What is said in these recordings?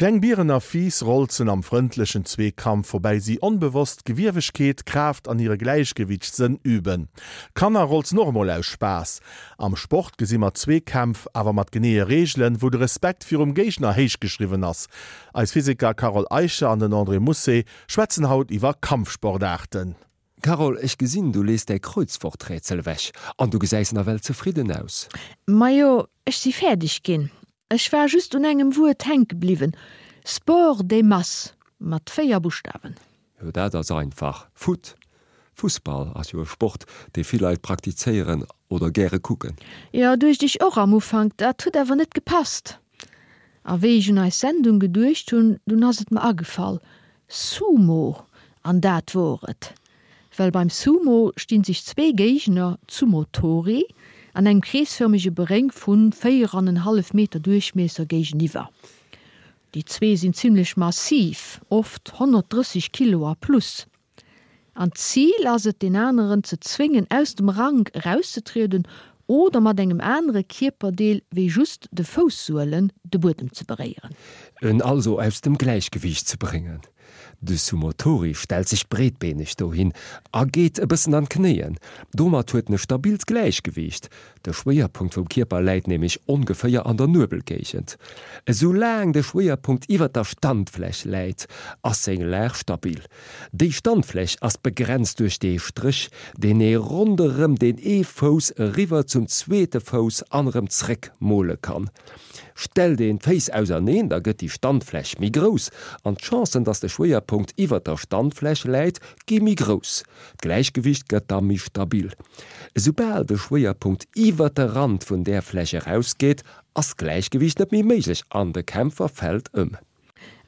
Kleng Bieren a Fiiss rolzen am frëndlechen Zweekampf, woubäi si onbewosst Gewiewegkeet, Kraaft an hire Gläichgewiichtssënn üben. Kanner rolzen och emol aus Spaass. Am Sport gesi mer Zweekämpf, awer mat geneeë Reegelen, wou de Respekt virum Géigner héich geschriwwen ass. Eis Physiker Carole Eicher an den André Mousset schwätzen haut iwwer Kampfsportaarten. Carole, ech gesinn, du lees däi Kreuzworträtsel ewech an du gesäis nawell zefridden aus. Majo, ech si fäerdeg ginn. Ech war just un engem Wuert hänke bliwwen, Sport des masses, mat 4 Buschtawen. Jo, dat ass einfach, Foot. Fussball ass jo e Sport, dee vill Leit praktizéieren oder gäre kucken. Jo, duecht ech och am Ufank, dat huet awer net gepasst. A wéi ech un eis Sendung geduecht hunn, dunn ass et mer agefall, Sumo! An dat wor et! Well beim Sumo sti sech zwee Géigner, Sumotori, an engem kreesfërmege Beréng vu 4 an en hallef Meter Duerchmiesser géigeniwwer. Déi zwee sinn zimmlech massiv, oft 130 Kilo a plus. An d'Zil ass et, deen aneren ze zwéngen, aus dem Rank erauszetrieden oder mat engem anere Kierperdeel wéi just de Foussuelen de Buedem ze beréieren. En also aus dem Gläichgewiicht ze bréngen. De Sumotori stellt sech breetbeeneg dohin a geet e bëssen an d'Knéien. Domat huet en e stabilt Gläichgewiicht. De Schwéierpunkt vum Kierper läit nämlech ongeféier an der Nuebelgéigend. Esou laang de Schwéierpunkt iwwer der Standfläch läit, ass seng Lag stabil. Déi Standfläch ass begrenzt duerch dee Stréch, deen ee ronderëm deen ee Fouss eriwwer zum zweete Fouss an erëm zréck mole kann. Stellt een d'Féiss auserneen, da gëtt déi Standfläch méi grouss an d'Chancen, dass de Schwéierpunkt iwwer der Standfläch läit, gi méi grouss. D'Gläichgewicht gëtt da méi stabil. Esoubal de Schwéierpunkt iwwer de Rand vun där Fläch erausgeet, ass d'Gläichgewicht net méi méiglech an de Kämpfer fält ëm.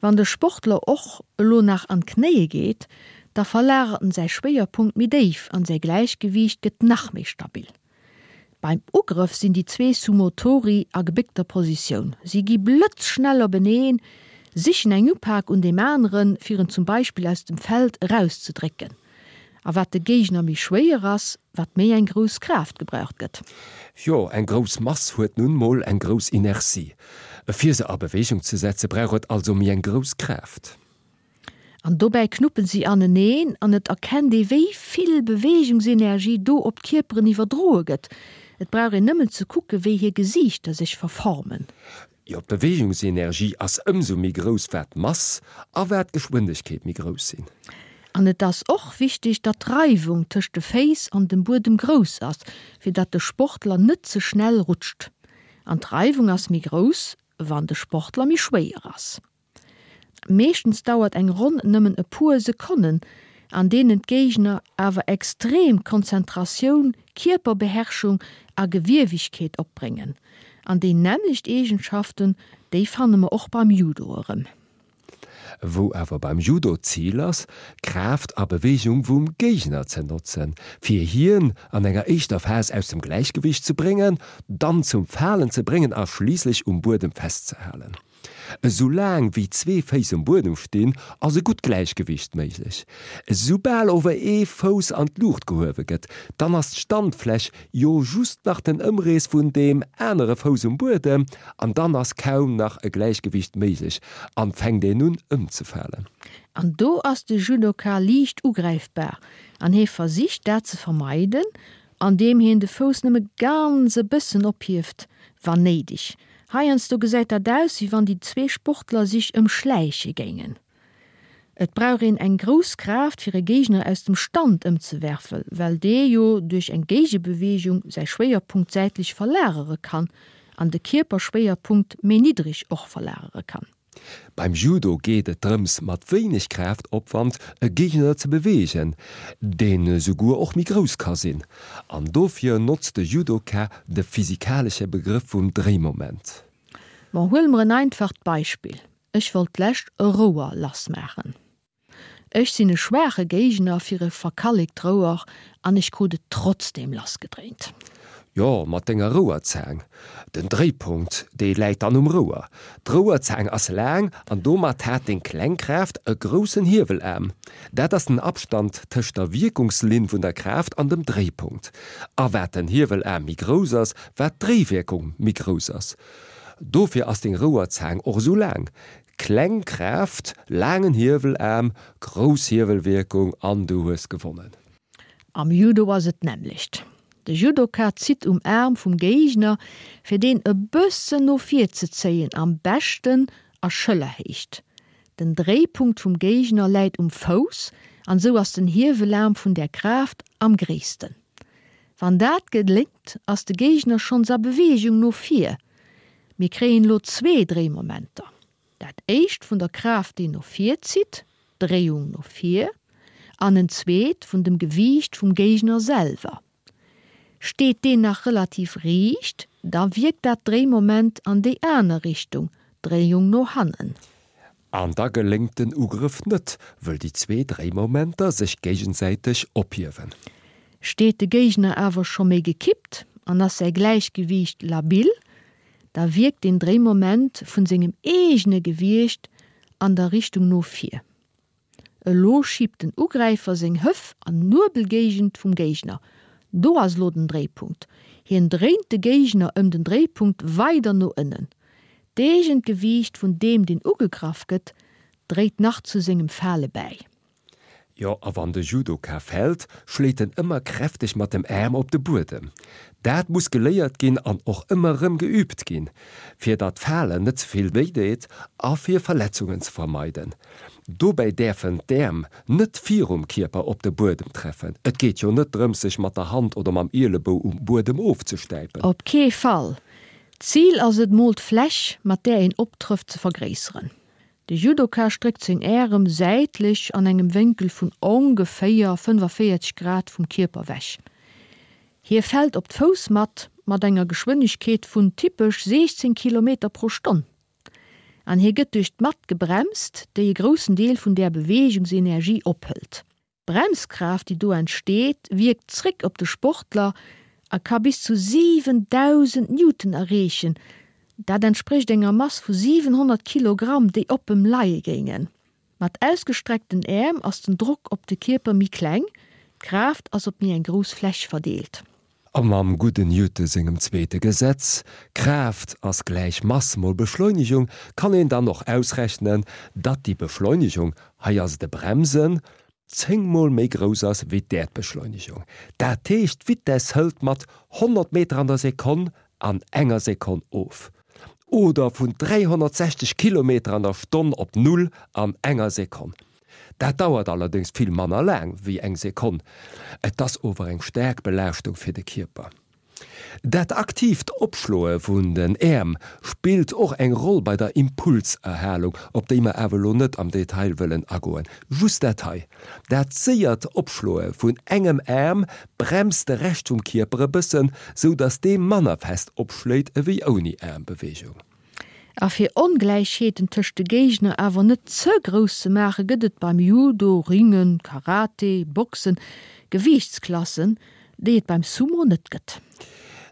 Wann de Sportler och elo nach an d'Knéie geet, da verlagert en säi Schwéierpunkt méi déif an säi Gläichgewiicht gëtt nach méi stabil. Beim Ugrëff sinn déi zwee Sumotori a gebéckter Positioun. Si gi blëtzschnell openeen, sichen eng Upak un deem aneren, fir en zum Beispill aus dem Feld erauszedrécken. A wat de Géigner méi schwéier ass, wat méi eng grouss Kraaft gebraucht gëtt. Jo, eng grouss Mass huet nun mol eng grouss Inertie. Fir se a Beweegung ze setze brauch et also méi eng grouss Kraaft. An dobäi knuppen si aneneen an et erkennt ee wéi vill Beweegungsenergie do op d'Kierperen iwwerdroe gëtt. Et brauch een nëmmen ze kucke wéi hir Gesiichter sech verformen. Jo, d'Beweegungsenergie ass ëmsou méi grouss wat d'Mass a wat d'Geschwindegkeet méi grouss sinn. An et ass och wichteg, datt d'Reiwung tëscht de Féiss an dem Buedem grouss ass, fir datt de Sportler net ze schnell rutscht. An d'Reiwung ass méi grouss, wann de Sportler méi schwéier ass. Meeschtens dauert eng Ronn nëmmen e puer Sekonnen, an deenen d'Géigner awer extrem Konzentratioun, Kierperbeherrschung a Gewiewegkeet opbréngen. An déi nämmlecht Eegenschaften, déi fanne mer och beim Judo erëm. Wou awer beim Judo d'Zil ass, Kraaft a Beweegung vum Géigner ze notzen, fir hien an enger éischter Phas aus dem Gläichgewiicht ze bréngen, dann zum Falen ze bréngen a schliisslech um Buedem festzehalen. Esou laang wéi zwee Féiss um Buedem stinn, ass e gutt Gläichgewiicht méiglech. Esoubal ower ee Fouss an d'Luucht gehuewe gëtt, dann ass d'Standfläch jo just nach den Ëmrees vun deem anere Fouss um Buedem an dann ass kaum nach e Gläichgewiicht méiglech an fänkt een un ëmzefalen. An do ass de Judoka liicht ugräifbar an hie versicht dat ze vermeiden, andeem hien de Fouss nëmme ganz e bëssen ophieft, wann néideg. Heiansdo gesäit dat aus, wéi wann déi zwee Sportler sich ëmschläiche géingen. Et brauch een eng grouss Kraaft, fir e Géigner aus dem Stand ëmzewerfen, well dee jo duerch eng Géigebeweegung säi Schwéierpunkt säitlech verlagere kann an de Kierperschwéierpunkt méi niddreg och verlagere kann. Beim Judo geet et drëms mat wéineg Kraaftopwand e Géigner ze beweegen, deen esouguer och méi grouss ka sinn. An dofir notzt de Judoka de physikalesche Begrëff vum Dréimoment. Bon, huele mer en einfacht Beispill, Ech wollt d'lescht e Rouer lassmaachen. Ech sinn e schwaache Géigner fir e verkallekt Rouer an ech krut et trotzdeem lassgedréint. Jo, mat denger Rouerzaang. Den Dréipunkt, dee läit dann um Rouer. D'Rouerzaang ass laang an domat hat deng kleng Kraaft e groussen Hiewelaarm. Dat ass den Abstand tëscht der Wierkungslinn vun der Kraaft an dem Dréipunkt. A wat den Hiewelaarm méi grouss ass, wat d'Dréiwierkung méi grouss ass. Dofir ass deng Rouerzaang och esou laang. Kleng Kraaft, laangen Hiewelaarm, grouss Hiewelwierkung an du hues gewonnen. Am Judo ass et d'nämmlecht. De Judoka zitt um Aarm vum Géigner, fir deen e bëssen no vir ze zéien, am beschten a Schëllerhéicht. Den Dréipunkt vum Géigner läit um Fouss an esou ass den Hiewelaarm vun där Kraaft am gréissten. Wann dat geléngt, ass de Géigner schonns a Beweegung no vir. Mir kréien elo zwee Dréimomenter. Dat éischt vun der Kraaft déi no vir zitt, Dréiung no vir, an en zweet vun dem Gewiicht vum Géigner selwer. Steet deen nach relativ riicht, da wierkt dat Dréimoment an déi aner Richtung, Dréiung no hannen. An da geléngt den Ugrëff net, wëll déi zwee Dréimomenter sech géigesäiteg ophiewen. Steet de Géigner awer scho méi gekippt an ass säi Gläichgewiicht labil, da wierkt den Dréimoment vun sengem eegene Gewiecht an der Richtung no vir. Elo schiebt den Ugräifer seng Hëff an Nuebelgéigend vum Géigner. Do ass elo den Dréipunkt. Hien dréint de Géigner ëm den Dréipunkt weider no ënnen. D'eegent Gewiicht vun deem deen ugegraff gëtt, dréit nach zu sengem Fale bäi. Jo, a wann de Judoka fält, schléit en ëmmer kräfteg mat dem Aarm op de Buedem. Dat muss geléiert ginn an och ëmmer erëm geüübt ginn, fir datt d'Falen net ze vill wéi deet a fir Verletzungen ze vermeiden. Dobäi däerfen d'Äerm net virum Kierper op de Buedem treffen. Et geet jo net drëms, sech mat der Hand oder mam Ielebou um Buedem ofzestäipen. Op kee Fall! D'Zil ass et mol d'Fläch, mat där een optrëfft, ze vergréisseren. De Judoka stréckt seng Ärem säitlech an engem Wénkel vun ongeféier 45 Grad vum Kierper wech. Hie fält op d'Foussmatt mat enger Geschwënnegkeet vun typesch 16 Kilometer pro Stonn. An hie gëtt duerch d'Matt gebremst, déi e groussen Deel vun där Beweegungsenergie ophëlt. D'Bremskraaft, déi do entsteet, wierkt zréck op de Sportler a ka bis zu 7.000 Newton erreechen, dat entsprécht enger Mass vu 700 Kilogramm, déi op em leie géingen. Mat ausgestreckten Äerm ass den Drock op de Kierper méi kleng, d'Kraaft ass op méi eng grouss Fläch verdeelt. A mam gudden Newton sengem zweete Gesetz, Kraaft ass gläich Mass mol Beschleunegung, kann een dann och ausrechnen, datt déi Beschleunegung, hei ass et e Bremsen, 10 mol méi grouss ass wéi d'Äerdbeschleunegung. Dat heescht, d'Vitess hëlt mat 100 Meter an der Sekonn an enger Sekonn of. Oder vun 360 Kilometer an der Stonn op Null an enger Sekonn. Dat dauert allerdéngs vill manner laang wéi eng Sekonn, et ass ower eng staark Belaaschtung fir de Kierper. Dat aktiivt Opschloe vun den Äerm spillt och eng Roll bei der Impulserhalung, op déi mer awer elo net am Detail wëllen agoen. Just dat hei, Dat séiert Opschloe vun engem Aarm bremst de Rescht vum Kierper e bëssen, sou datt dee manner fest opschléit ewéi ouni Aarmbeweegung. A fir Ongläichheeten tëscht de Géigner awer net ze grouss ze maachen, gëtt et beim Judo, Ringen, Karate, Boxen Gewiichtsklassen, déi et beim Sumo net gëtt.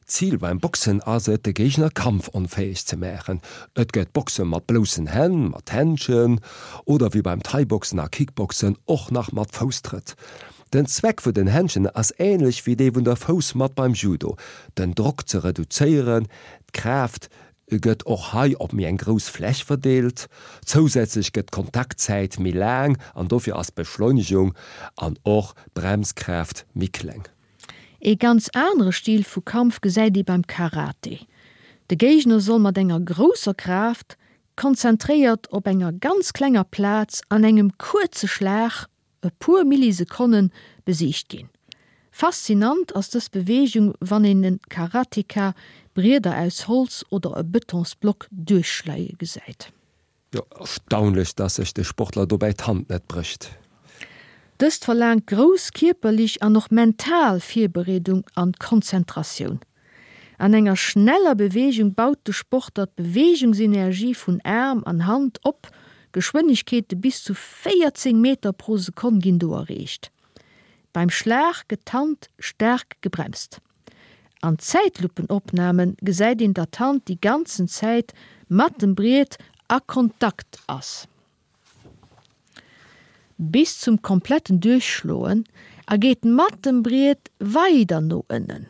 D'Zil beim Boxen ass et, de Géigner kampfonfäeg ze maachen. Et gëtt Boxe mat bloussen Hänn, mat Händschen oder wéi beim Thai-Boxen a Kickboxen och nach mat Fousstrëtt. Den Zweck vun den Händschen ass änlech wéi dee vun der Foussmatt beim Judo, den Drock ze reduzéieren, d'Kraaft gëtt och hei op méi eng grouss Fläch verdeelt. Zousätzlech gëtt d'Kontaktzäit méi laang an dofir ass d'Beschleunegung an och d'Bremskraaft méi kleng. Ee ganz anere Stil vu Kampf gesäit ee beim Karate. De Géigner soll mat enger grousser Kraaft, konzentréiert op enger ganz klenger Plaz an engem kuerze Schlag, e puer Millisekonnen, besiegt ginn. Faszinant ass dës Beweegung, wann een e Karateka Brieder aus Holz oder e Betonsblock duerchschleie gesäit. Jo, erstaunlech, dass sech de Sportler dobäi d'Hand net brécht. Dëst verlaangt grouss kierperlich an och mental Virbereedung an Konzentratioun. An enger schneller Beweegung baut de Sportler d'Beweegungsenergie vun Aarm an Hand op, Geschwënnegkeete bis zu 14 Meter pro Sekonn ginn do erreecht. Beim Schlag gëtt d'Hand staark gebremst. An Zäitluppenopname gesäit een, datt d'Hand déi ganzen Zäit mat dem Briet a Kontakt ass. Bis zum kompletten Duerchschloen a geet mat dem Briet weider no ënnen.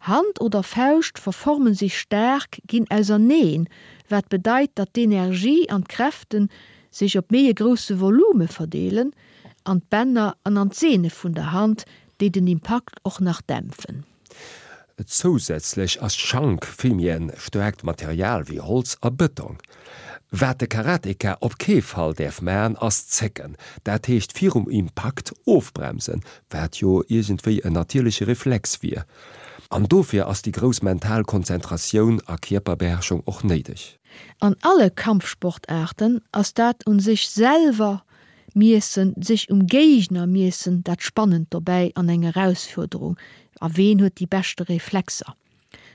Hand oder Fauscht verformen sech staark, ginn auserneen, wat bedeit, datt d'Energie an d'Kräfte sech op méi e grousse Volume verdeelen, an d'Bänner an an d'Sehne vun der Hand, déi den Impakt och nach dämpfen. Zousätzlech ass d'Schank vill méi en staarkt Material wéi Holz a Bëtong. Wat de Karateka op kee Fall däerf man ass zécken, dat heescht virum Impakt ofbremsen, wat jo iergendwéi en natierleche Reflex wier. An dofir ass déi grouss mental Konzentratioun a Kierperbeherrschung och néideg. An alle Kampfsportaarten ass dat un sech selwer miessen, sech um Géigner miessen dat Spannend dobäi an eng Erausfuerderung, a ween huet déi beschte Reflexer.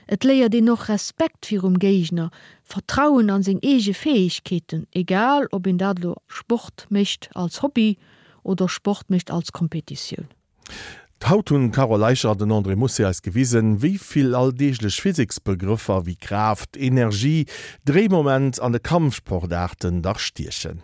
Et léiert een och Respekt virum Géigner, Vertrauen an seng eege Fäegkeeten, egal ob een dat elo Sport mécht als Hobby oder Sport mécht als Kompetitioun. Haut hunn d'Carole Eicher an den André Mousset eis gewisen, wéi vill alldeeglech Physiksbegrëffer wéi Kraaft, Energie, Dréimoment an de Kampfsportaarten dach stiechen.